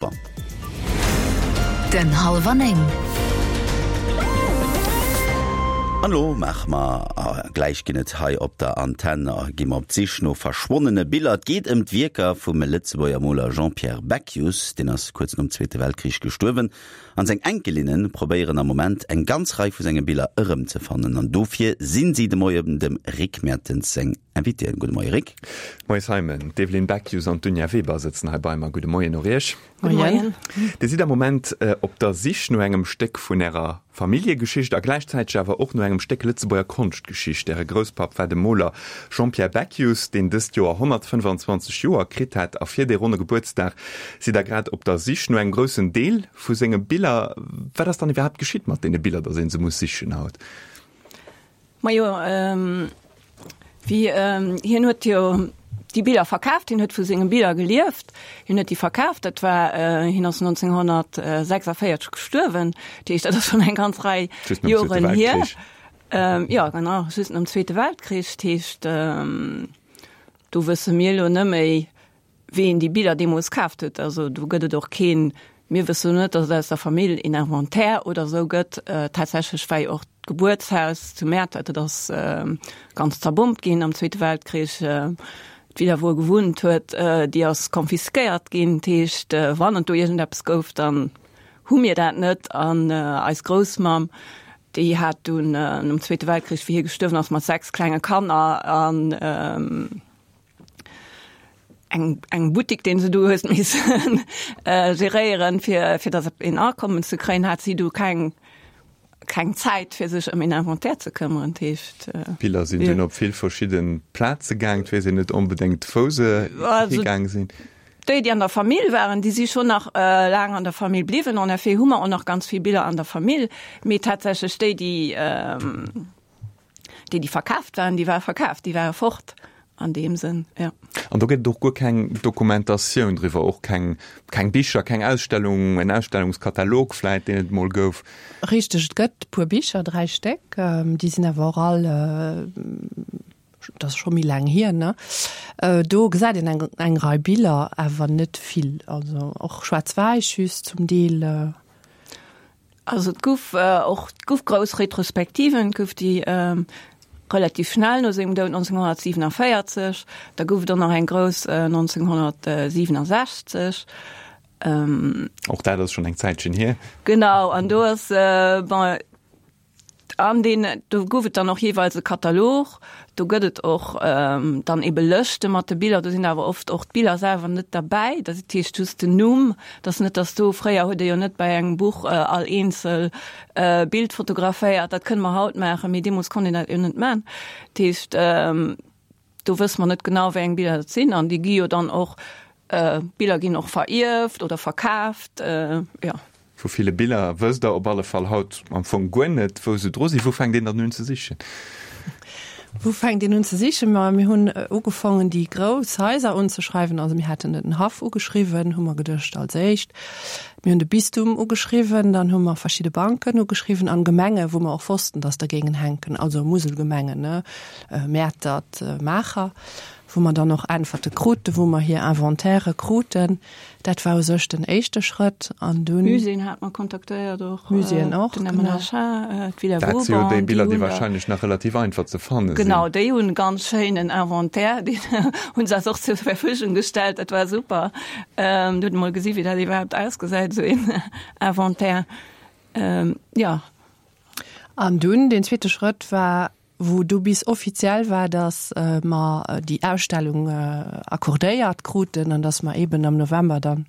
Den Hallwer 9. An elo maache mer, gläich ginn et hei op der Antenn, gi mer op d'Sich no verschwonnene Biller. Et geet ëm d'Wierker vum Lëtzebuerger Moler Jean-Pierre Beckius. Deen ass kuerz nom Zweete Weltkrich gestuerwen an seng Enkelinne probéieren am Moment eng ganz Rei vu senge Biller erëmzefannen. An dofir sinn si de Moien dem Rick Mertens seng Invitéen. Gudde Moie Rick. Moie Simon. D'Evelyne Beckius an d'Dunja Weber sëtzen hei bei mer. Gudde Moien och Iech. Moien. Dir sidd am Moment op der Sich no engem Stéck vun Ärer Familljegeschicht a gläichzäiteg awer och no engem Stéck Lëtzebuerger Konschtgeschicht. Äre Grousspapp war de Moler Jean-Pierre Beckius, deen dëst Joer 125 Joer kritt hätt. A fir dee ronne Gebuertsdag sidd Der grad op der Sich no engem groussen Deel vu senge Biller. Wat ass dann iwwerhaapt geschitt mat deene Biller, datt ee se muss sichen haut? Majo, wéi hien huet jo déi Biller verkaaft, hien huet vu senge Biller gelieft, hien huet déi verkaaft, dat war, hien ass 1946 gestuerwen, dat heescht, dat ass schonn eng ganz Rei Joren hier. Jo, genau, just nom Zweete Weltkrich, dat heescht, do wësse mir elo net méi, Ween déi Biller deemools kaaft huet, also do gëtt et och keen, mir wëssen net, datt et aus der Famill een Inventaire oder esou gëtt. Tatsächlech war jo och d'Gebuertshaus zu Mäertert, dat ass ganz zerbombt ginn am Zweete Weltkrich. D'Villa, wou e gewunnt huet, déi ass confisquéiert ginn. Dat heescht, wann et do iergendeppes gouf, dann hu mir dat net. An eis Groussmamm, déi hat dunn nom Zweete Weltkrich, wéi hie gestuerwen ass, mat 6 klenge Kanner an, eng eng Buttik deen se du hues missen geréieren fir fir datt een Akommen ze kréien, hat si du keng keng Zäit fir sech ëm een Inventaire ze këmmeren. Dat heescht. D'Biller sinn dunn op vill verschidde Plaze gaang, et weess een net onbedéngt wou se higaang sinn. Déi déi an der Famill waren, déi si schonn nach laang an der Famill bliwwen. En effet hu mer och nach ganz vill Biller an der Famill, mee tatsächlech déi déi. Déi, déi verkaaft waren, déi ware verkaaft, déi ware fort an deem Sënn, jo. An do gëtt et och guer keng Dokumentatioun driwwer, och keng, keng Bicher, keng Ausstellung, en Ausstellungskatalog vläit, deen et emol gouf? Richteg, et gëtt e puer Bicher, 3 Stéck, déi sinn awer och all, dat ass scho méi laang hier, ne? Do gesäit een eng, eng Rei Biller, awer net vill, also och schwaarz-wäiss just zum Deel. Also et gouf och, et gouf grouss Retrospektiven, et gouf déi relativ schnell no sengem Doud 1947, da gouf et och nach eng grouss 1967. Och dat ass schonn eng Zäitchen hier. Genau, an do ass, bon, An deen, do gouf et dann och jeeweils e Katalog. Do gëtt et och dann ebe Lëschte mat de Biller. Do sinn awer oft och d'Biller selwer net derbäi. Dat heescht just den Numm. Et ass net, datt do, fréier huet ee jo net bei engem Buch all eenzel Bild fotograféiert. Dat kënne mer haut maachen, mee deemools konnt een dat jo net maachen. Dat heescht, Do wësse mer net genau, wéi eng Biller dat sinn. An déi gi jo dann och, Biller ginn och verierft oder verkaaft, jo. Vu ville Biller wësst Der op alle Fall haut am Fong guer net, wou se dru sinn. Wou fänkt een dann un ze sichen? Wou fänkt een un ze sichen? Ma mir hunn ugefongen, déi grouss Haiser unzeschreiwen. Also mir haten den Haff ugeschriwwen, hu mer geduecht als éischt. Mir hunn de Bistum ugeschriwwen, dann hu mer verschidde Banken ugeschriwwen an Gemenge wou mer och wossten, dass der géingen hänken, also Muselgemengen, ne, Mäertert, Maacher, wou mer dann och Äntwerte kruten, wou mer hir Inventairë kruten. Dat war u sech den éischte Schrëtt an dunn. Muséeën hate mer kontaktéiert och. Muséeën och, den MNHA, d'Villa Vauban. Dat si jo déi Biller, déi wahrscheinlech nach relativ einfach ze fanne sinn. Genau, déi hunn e ganz schéinen Inventaire, deen hu se eis och zur Verfügung gestellt, dat war super. Do huet ee mol gesi wéi dat iwwerhaapt ausgesäit, esou een Inventaire. Jo. An dunn deen zweete Schrëtt war, wou du bis offiziell war, datt mer déi Ausstellung accordéiert kruten an datt mer eeben am November dann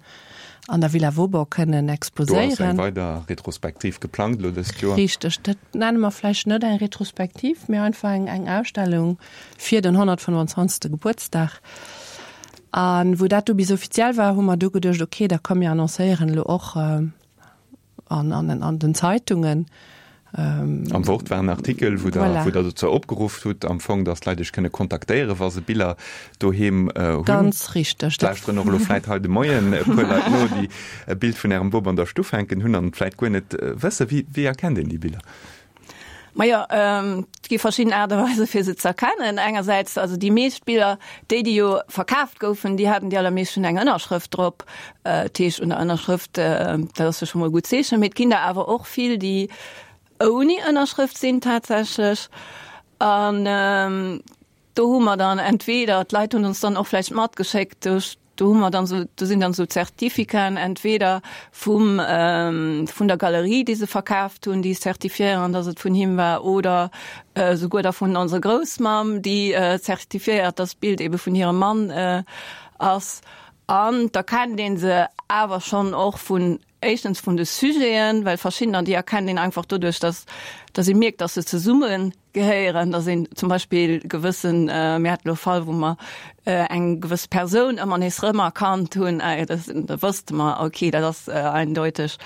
an der Villa Vauban kënnen exposéieren. Do ass eng weider Retrospektiv geplangt elo dëst Joer. Richteg. Dat nenne mer vläicht net eng Retrospektiv, mee einfach eng Ausstellung fir den 125. Gebuertsdag. A wou dat du bis offiziell war, hu mer du geduecht, okay, da komm mir annoncéieren elo och an, an, an den Zeitungen. Am Wort war en Artikel, wou Der, voilà. wou Der dozou opgeruff hutt, am Fong, dass d'Leit Iech kënne kontaktéieren, wa se Biller doheem hunn. Ganz richteg. Lauschteren och elo vläit hei de Moien e puer Leit no, déi e Bild vun Ärem Bop an der Stuff hänken hunn an et vläit guer net wëssen. Wéi, wéi erkennt een déi Biller? Majo, et gi verschidden Aart a Weise fir se ze erkennen. Engersäits, also déi meescht Biller, déi déi jo verkaaft goufen, déi haten déi allermeescht schonn eng Ënnerschrëft drop. Dat heescht, un der Ënnerschrëft, dat ass jo scho mol e gutt Zeechen. Mee et ginn der awer och vill, déi ouni Ënnerschrëft sinn tatsächlech. An do hu mer dann entweder, d'Leit hunn ons dann och vläicht matgeschéckt, do Do hu mer dann esou, do sinn dann esou Zertificaten entweder vum, vun der Galerie, déi se verkaaft hunn, déi zertifiéieren, dass et vun him war, oder souguer da vun onser Groussmamm, déi zertifiéiert, dass d'Bild ebe vun hirem Mann ass. An da kennt ee se awer schonn och vun, éischtens vun de Sujeten, well verschiddener, déi erkennt een einfach doduerch, dass, dass ee mierkt, dass se zesumme gehéieren, dass een zum Beispill gewëssen, mir haten elo e Fall, wou mer eng gewëss Persoun ëmmer nees rëmerkannt hunn, da wësste mer, okay, dat ass eindeuteg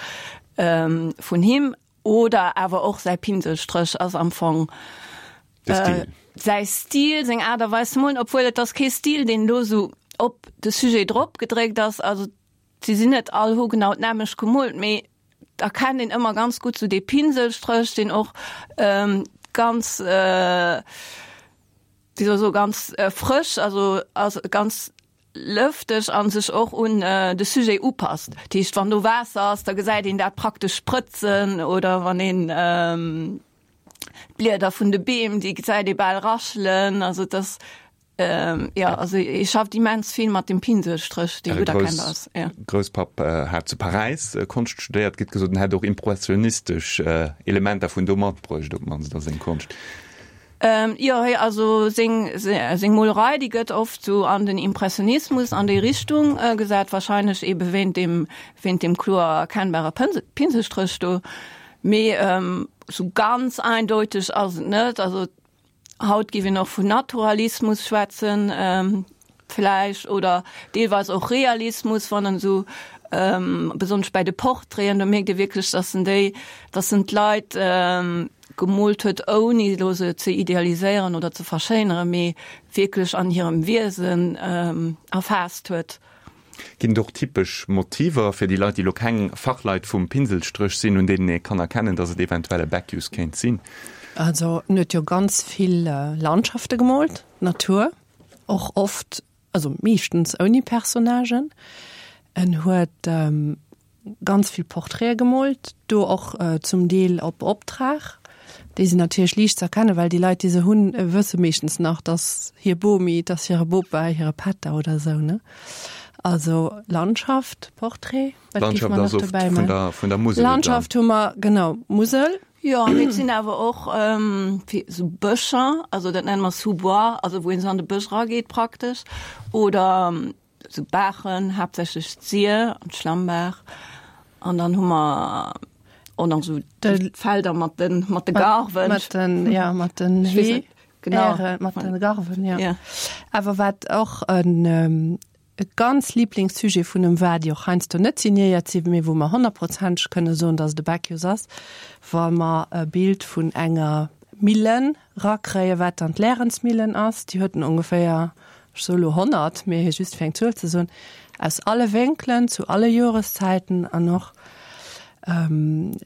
vun him. Oder awer och säi Pinselstréch ass am Fong säi Stil, seng Aart a Weis ze molen, obwuel et ass kee Stil, deen elo esou op de Sujet drop gedréckt ass. Also si sinn net all hu genau d'nämmlecht gemoolt, mee erkennt een ëmmer ganz gutt sou dee Pinselstréch, deen och ganz, wéi soll ech soen, ganz frësch, also ass ganz lëfteg a sech och un de Sujet upasst. Dat heescht, wann do Waasser ass, da gesäit een dat praktesch sprëtzen oder wann een d'Blieder vun de Beem, déi gesäit ee bal raschelen. Also et ass Jo, also hie schafft immens vill mat dem Pinselstréch, dee gutt erkennbar ass. Äre Grousspapp hat zu Paräis Konscht studéiert. Gëtt gesot, en hätt och impressionistesch Elementer vun do matbruecht, op d'mannst a seng Konscht. Jo, also seng seng Molerei, déi gëtt oft sou an den Impressionismus, an déi Richtung gesat, warscheinlech ebe wéint deem wéint deem kloer erkennbare Pinselstréch do. Mee sou ganz eindeuteg ass et net. Also Haut géif een och vun Naturalismus schwätzen vläicht oder deelweis och Realismus, wann en esou besonnesch bäi de Portraiten, do mierkt ee wierklech, datt en déi, datt en d'Leit gemoolt huet, ouni elo se ze idealiséieren oder ze verschéineren, mee wierklech an hirem Wiesen erfaasst huet. Ginn et och typesch Motiver fir déi Leit, déi elo keng Fachleit vum Pinselstréch sinn, un deenen ee kann erkennen, datt et eventuell e Beckius kéint sinn? Also en huet jo ganz vill Landschafte gemoolt, Natur, och oft, also meeschtens ouni Personnagen. En huet ganz vill Portraite gemoolt, do och zum Deel op Optrag. Déi sinn natierlech liicht ze erkennen, well déi Leit, déi se hunn, wësse meeschtens nach, dass hir Bomi, dass hire Bopa, hire Pätter oder esou, ne? Also Landschaft, Portrait, wat géif mer nach dobäi man? Vun der Musel. Landschaft hu mer, genau, Musel. Jo, mee et sinn awer och esou Bëscher, also dat nenne mer Sous-bois, also wou een esou an de Bësch erageet praktesch, oder Sou Baachen, haaptsächlech d'Sir an d'Schlammbaach. An dann hu mer och nach sou d'Felder mat de mat de Garwen. Mat den, ja, mat den Hee. Genau. Mat den Garwen, ja. Ja. Awer wat och en e ganz Liblingssujet vun em war, déi och heiansdo net signéiert sinn, mee wou mer honnertprozenteg kënne soen, datt et e Beckius ass, wa mer e Bild vun enger Millen rakréien, wat dann d'Lärensmillen ass, déi huet en ongeféier ech soe lo 100, mee just fir eng Zuel ze soen, aus alle Wénkelen, zu alle Joreszäiten an och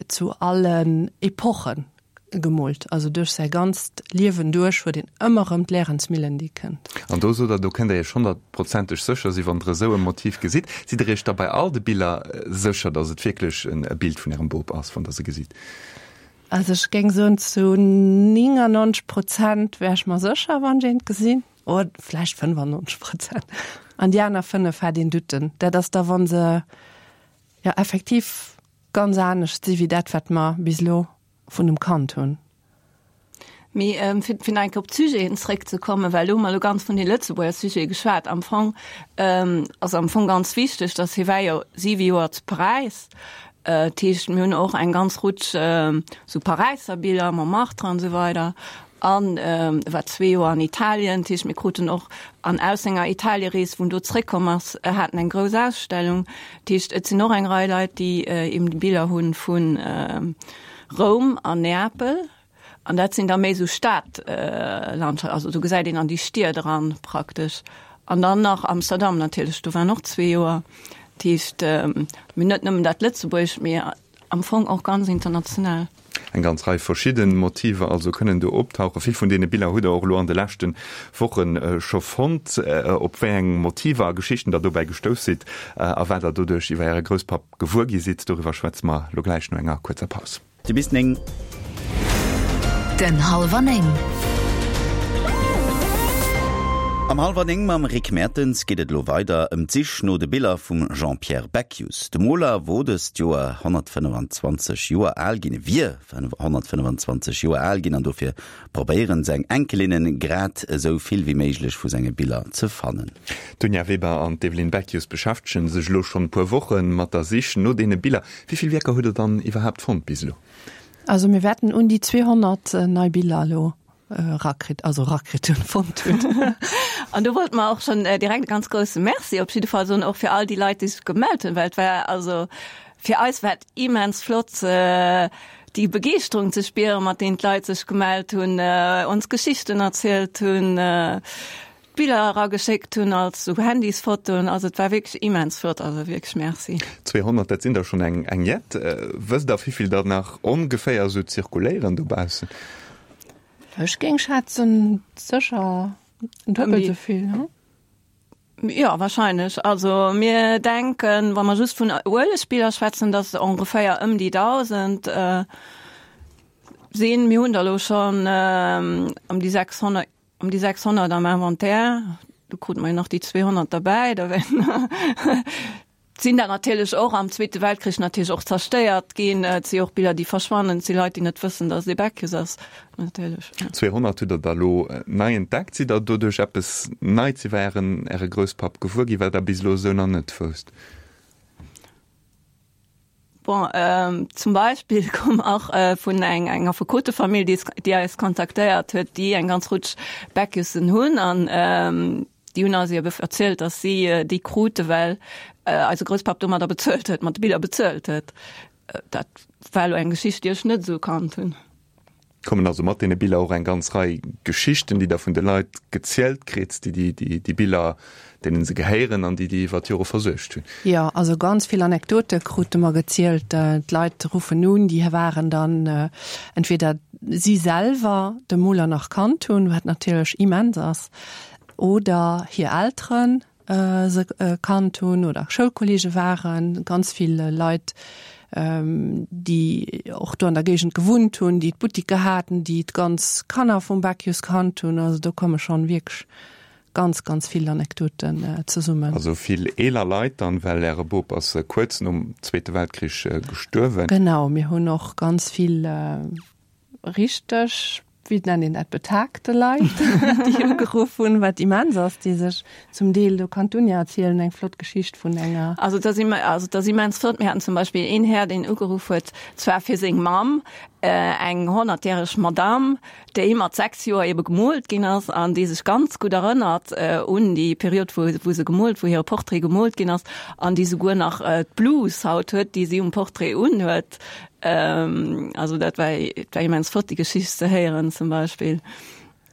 zu allen Epochen gemoolt. Also duerch säi ganzt Liewen duerch huet een ëmmer erëm d'Lärensmillen, déi kënnt. An do sot Der, do kënnt Der Iech honnertprozenteg sécher sinn, wann Der esou e Motiv gesitt. Sidd Der Iech da bei all de Biller sécher, datt et wierklech e Bild vun Ärem Bop ass, wann Der se gesitt? Also ech géing soen, zu 99 Prozent wär ech mer sécher, wann ech eent gesinn. Oder vläicht 95 Prozent. An déi aner 5 hat een Douten. Dat ass da, wa se jo effektiv ganz anescht si wéi dat, wat mer bis elo vun dem Kand hunn. Mee fir fir nach eng Kéier op d'Sujeten zréckzekommen, well do hu mer elo ganz vun de Lëtzebuerger Sujete geschwat. Am Fong ass am Fong ganz wichteg, datt hie war jo siwe Joer zu Paräis. Dat heescht, mir hunn och eng ganz Rutsch sou Paräisser Biller, Montmartre an esou weider. An e war zwee Joer an Italien, dat heescht mir kruten och, an aus senger Italierees, wou en do zréckkomm ass, hat en eng grouss Ausstellung. Dat heescht, et sinn och eng Rei Leit, déi eben Biller hu vu Roum an Neapel. An dat sinn da méi esou Stadlandschaften, also do gesäit een an déi Stied eran praktesch. An dann nach Amsterdam natierlech, do war en och zwee Joer. Dat heescht, mir hunn net nëmmen dat Lëtzebuergescht, mee am Fong och ganz international. Eng ganz Rei verschidde Motiver also kënnen do optauchen. Vill vun deene Biller hutt Der och elo an de leschte Woche scho fonnt. Op wéi eng Motiver a Geschichten Der dobäi gestouss sidd a wat Der doduerch iwwer Äre Grousspapp gewuer gi sidd, doriwwer schwätze mer elo gläich no enger kuerzer Paus. Du bis 9. Den Hallwer 9. Am Hallwer 9 mam Rick Mertens geet et elo weider ëm d'Sich no de Biller vum Jean-Pierre Beckius. De Moler wor dëst Joer 125 Joer al ginn, wier 125 Joer al ginn an dofir probéieren seng Enkelinnen grad esou vill wéi méiglech vu senge Biller ze fannen. D'Dunja Weber an d'Evelyne Beckius beschäftege sech elo schonn e puer Woche mat der Sich no deene Biller. Wéi vill Wierker hutt der dann iwwerhaapt fonnt bis elo? Also mir wäerten un déi 200 nei Biller elo erakritt, also erakritt hunn, fonnt hunn. An do wollte mer och schonn direkt e ganz grousse Merci op jidde Fall soen, och fir all déi Leit, déi sech gemellt hunn, well et war also fir eis war et immens flott, déi Begeeschterung ze spieren, mat deenen d'Leit sech gemellt hunn, ons Geschichten erzielt hunn. Biller erageschéckt hunn als sou Handysfotoen, also et war wierklech immens flott, also wierklech Merci. 200, dat sinn der schonn eng eng jett. Wësst der wéivill der nach ongeféier sou zirkuléieren dobaussen? Ech géing schätzen sécher duebel sou vill, hm? Jo, wahrscheinlech. Also mir denken, wa mer just vun Uelegbiller schwätzen, dass et ongeféier ëm déi 1.000 sinn. Mir hunn der elo schonn ëm déi 600. Ëm déi 600 am Inventaire, do krute mer jo nach déi 200 derbäi, da sinn der natierlech och am Zweete Weltkrich natierlech och zerstéiert ginn. Et si och Biller, déi verschwannen, et si Leit, déi net wëssen, datt et ee Beckius ass, natierlech. 200 hutt Der der elo nei entdeckt. Sidd Der doduerch eppes Neits iwwer Ären, Äre Grousspapp gewuer ginn, wat Der bis elo esou nach net wousst? Bon, zum Beispill koum och vun eng eng Affekotefamill, déi déi eis kontaktéiert huet, déi eng ganz Rutsch Beckiussen hunn an déi hunn eis ebe erzielt, datt si déi krute well eise Grousspapp domadder bezuelt huet, mat de Biller bezuelt huet. Dat war elo eng Geschicht, déi ech net esou kannt hunn. Kommen also mat deene Biller och eng ganz Rei Geschichten, déi Der vun de Leit gezielt kritt, déi déi Biller, deenen se gehéieren an déi déi iwwer d'Jore versuergt hunn. Jo, also ganz vill Anekdote krute mer gezielt. D'Leit ruffen un, déi waren dann entweder si selwer de Moler nach kannt hunn, wat natierlech immens ass, oder hir Elteren, se kannt hunn oder Schoulkolleege waren, ganz vill Leit, déi och do an der Géigend gewunnt hunn, déi d'Buttiker haten, déi d'ganz Kanner vum Beckius kannt hunn. Also do komme schonn wierklech ganz, ganz vill Anekdoten zesummen. Also vill eeler Leit dann, well Äre Bop ass kuerz nom Zweete Weltkrich gestuerwen. Genau, mir hunn och ganz vill richteg, wéi nennt een dat, betagte Leit, déi ugeruff hunn, wat immens ass, déi sech zum Deel, do kann d'Dunja erzielen, eng flott Geschicht vun enger. Also dat ass, also dat ass immens flott. Mir haten zum Beispill een Här, deen ugeruff huet, zwar fir seng Mamm, eng honnertjäreg Madamm, déi mat 6 Joer ebe gemoolt ginn ass an déi sech ganz gutt erënnert un déi Period, wou, wou se gemoolt, wou hire Portrait gemoolt ginn ass an déi souguer nach d'Blus haut huet, déi si um Portrait unhuet. Also dat war, war immens flott, déi Geschicht ze héieren zum Beispill.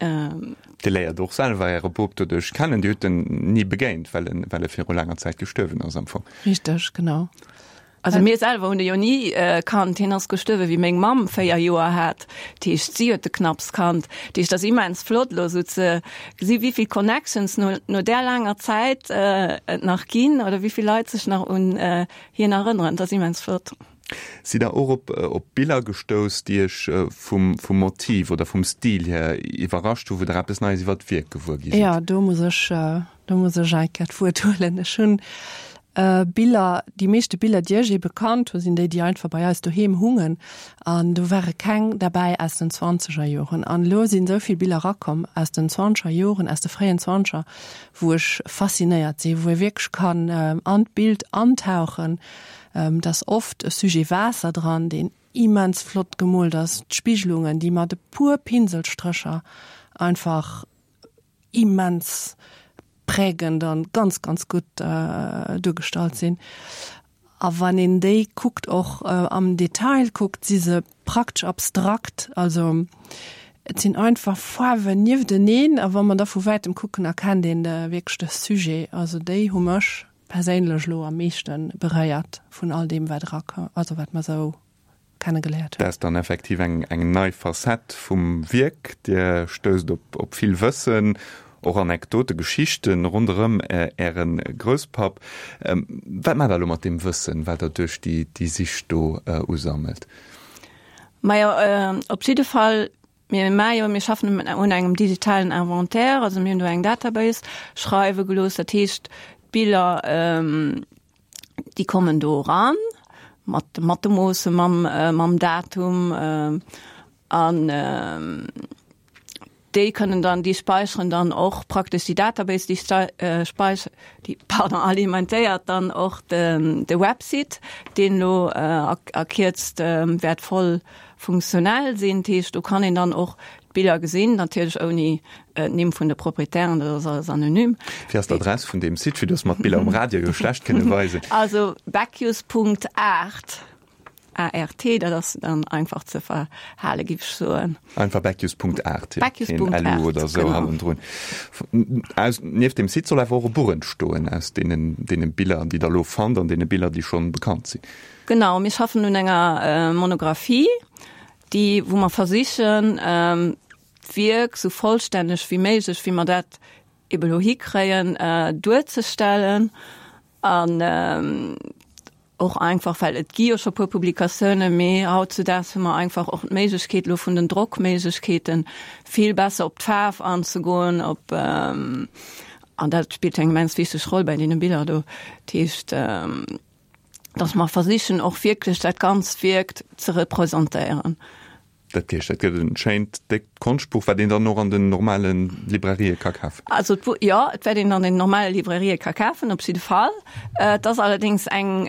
Dir léiert och selwer Äre Bop doduerch kennen. Dir hutt en ni begéint, well en, well e viru laanger Zäit gestuerwen ass am Fong. Richteg, genau. Also mir selwer hunn e jo ni kannt. Hien ass gestuerwe wéi meng Mamm 4 Joer hat. Dat heescht, si huet de knapps kannt. Dat heescht, et ass immens flott elo esou ze gesi wéi vill Connections no, no där laanger Zäit et nach ginn oder wéi vill Leit sech nach un hien erënneren. Dat ass immens flott. Sidd Der och op op Biller gestouss, déi Iech vum vum Motiv oder vum Stil hier iwwerrascht hu, wou Der eppes Neies iwwer d'Wierk gewuer gi sidd? Jo, do muss ech do muss ech eng Kéier d'Wuert huelen. Ech hunn Biller, déi meeschte Biller, déi ech ebe kannt hu, sinn déi, déi einfach bei eis doheem hungen. An do ware keng derbäi aus den zwanzeger Joren. An elo sinn esou vill Biller erakomm aus den zwanzeger Joren, aus de fréien Zwanzeger, wou ech faszinéiert sinn, wou ee wierklech kann an d'Bild antauchen. Et ass oft e Sujet Waasser dran, deen immens flott gemoolt ass, d'Spigelungen, déi mat e puer Pinselstrécher einfach immens prägend an ganz, ganz gutt duergestallt sinn. A wann een déi kuckt, och am Detail kuckt, si se praktesch abstrakt, also et sinn einfach Faarwen niefteneen a wa mer da vu wäitem kucken, erkennt een wierklech de Sujet. Also déi hu mech perséinlech elo am meeschte beréiert vun all deem wat erakoum, also wat mer esou. Kennegeléiert hunn. Dat ass dann effektiv eng eng nei Facette vum Wierk. Dir stousst op op vill Wëssen, och Anekdote, Geschichten ronderëm Äre Grousspapp. Wat maacht Der elo mat deem Wëssen, wat Der duerch déi déi Sich do usammelt? Majo, op jidde Fall, mir maache jo, mir schaffen un engem digitalen Inventaire, also mir hunn do eng Database schreiwe gelooss. Dat heescht, d'Biller, déi kommen do eran mat mat de Moosse, mam mam Datum an déi kënnen dann, déi späicheren dann och praktesch déi Database, déi speich déi pardon alimentéiert dann och de de Website, deen elo a a Kierzt wäert voll funktionell sinn. Dat heescht, do kann een dann och d'Biller gesinn, natierlech ouni d'Nimm vun de Proprietären, dat ass alles anonym. Wéi ass d'Adress vun deem Site, fir dass mer d'Biller um Radio jo schlecht kënne weisen? Also beckius.art, A-R-T, dat ass dann einfach ze verhale giff ech soen. Einfach beckius.art, jo, keen LU oder esou hannendrun. Aus, nieft deem Site soll awer och e Buch entstoen aus deenen, deene Biller, déi Der elo fannt an deene Biller, déi schonn bekannt sinn. Genau, mir schaffen un enger Monographie, déi, wou mer versichen, d'Wierk sou vollstänneg wéi méiglech, wéi mer dat ebe lo hikréien, duerzestellen. An och einfach, well et gi jo scho puer Publikatiounen, mee hautzudaags hu mer einfach och d'Méiglechkeet elo vun den Drockméiglechkeeten, vill besser op d'Faarf anzegoen, op, an dat spillt eng immens wichteg Roll bei deene Biller do. Dat heescht, dass mer versichen och wierklech dat ganzt Wierk ze representéieren. Dat heescht, dat gëtt en schéint, déckt Konschtbuch, wat een dann och an den normale Librarië ka kafen? Also d'Buch, jo, et wäert een an den normale Librarië ka kafen, op jidde Fall. Et ass allerdéngs eng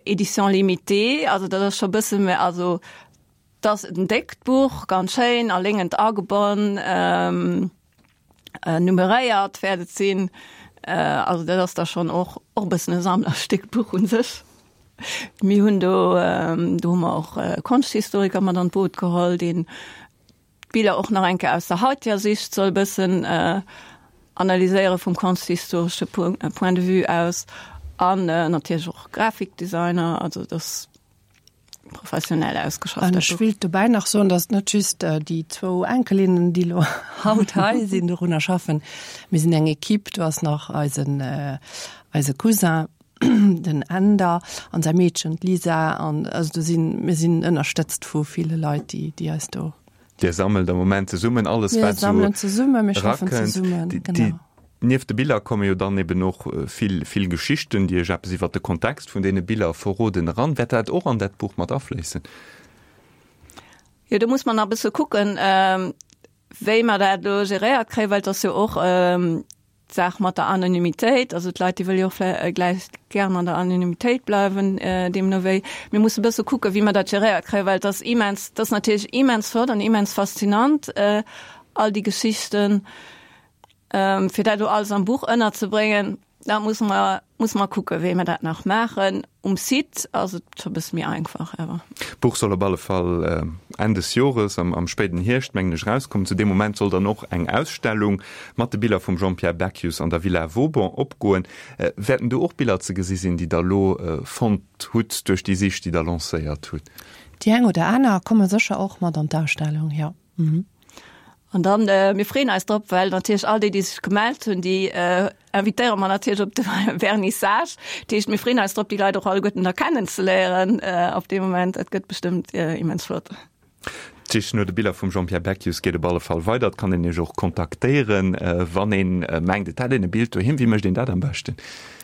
Édition limitée, also dat ass scho e bësse méi, also et ass en déckt Buch, ganz schéin a léngend agebonn. Nummeréiert wäert et sinn. Also dat ass da schonn och och e bëssen e Sammlerstéck, d'Buch u sech. Mir hunn do, do hu mer och e Konschthistoriker mat an d'Boot geholl, deen d'Biller och nach eng Kéier aus der haiteger Sicht soll e bëssen analyséiere vum konschthistoresche Point de vue aus an natierlech och Grafikdesigner. Also dass professionell ausgeschafft. An ech wéilt dobäi nach soen, datt net just déi zwou Enkelinnen, déi elo haut hei sinn, dorunner schaffen. Mir sinn eng Equipe, do ass nach eisen, eise Cousin, den Änder, an säi Meedchen, d'Lisa. An also do sinn, mir sinn ënnerstëtzt vu ville Leit, déi, déi eis do. Dir sammelt am Moment zesummen alles, wat esou Mir sammelen zesummen, mir schaffen zesummen, genau. Nieft de Biller komme jo dann eben och vill, vill Geschichten, déi Iech eppes iwwert de Kontext vun deene Biller verroden, eran. Wäert dat och an dat Buch mat afléissen? Jo, do muss mer nach e bësse kucken, wéi mer dat elo geréiert kréien, well et ass jo och d'Saach mat der Anonymitéit. Also d'Leit, déi wëlle jo och vläicht gären an der Anonymitéit bleiwen, deemno wéi. Mir musse e bësse kucken, wéi mer dat geréiert kréien, well et ass immens, et ass natierlech immens flott an immens faszinant, all déi Geschichten. Fir dat elo alles am Buch ënnerzebréngen, da musse mer, musse mer kucken, wéi mer dat nach maachen. Um Site ass et scho e bësse méi einfach awer. D'Buch soll op alle Fall Enn des Jores, am spéiden Hierscht, mengen ech, erauskommen. Zu deem Moment soll dann och eng Ausstellung mat de Biller vum Jean-Pierre Beckius an der Villa Vauban opgoen. Wäerten do och Biller ze gesi sinn, déi Der elo fonnt hutt duerch déi Sich, déi Der lancéiert hutt? Déi eng oder aner komme sécher och mat an d'Ausstellung, jo. An dann, mir freeën eis drop, well natierlech all déi, déi sech gemellt hunn, déi invitéiere mer natierlech op de Vernissage. Dat heescht, mir freeën eis drop, déi Leit och alleguerten da kennenzeléieren op dee Moment. Dat gëtt bestëmmt immens flott. D'Sich no de Biller vum Jean-Pierre Beckius geet op alle Fall weider. Et kann een Iech och kontaktéieren, wann een mengt, et hätt een e Bild doheem. Wéi mécht een dat am beschten?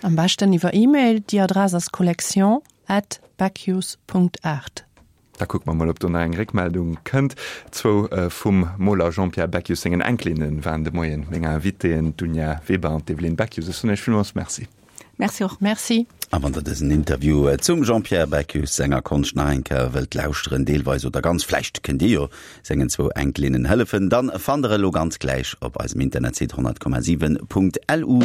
Am beschten iwwer E-Mail. Déi Adress ass collection at beckius Punkt art. Da kucke mer mol, ob do nach eng Réckmeldung kënnt. Zwou vum Moler Jean-Pierre Beckius sengen Enkelinne waren de Moien meng Invitéen, d'Dunja Weber an d'Evelyne Beckius. Ech soen Iech villmools Merci. Merci och. Merci. A wann der dësen Interview zum Jean-Pierre Beckius senger Konscht nach eng Kéier wëllt lauschteren, deelweis oder ganz, vläicht kënnt Dir jo sengen zwou Enkelinnen hëllefen, dann fannt der e lo ganz gläich op eisem Internetsite 100,7.lu.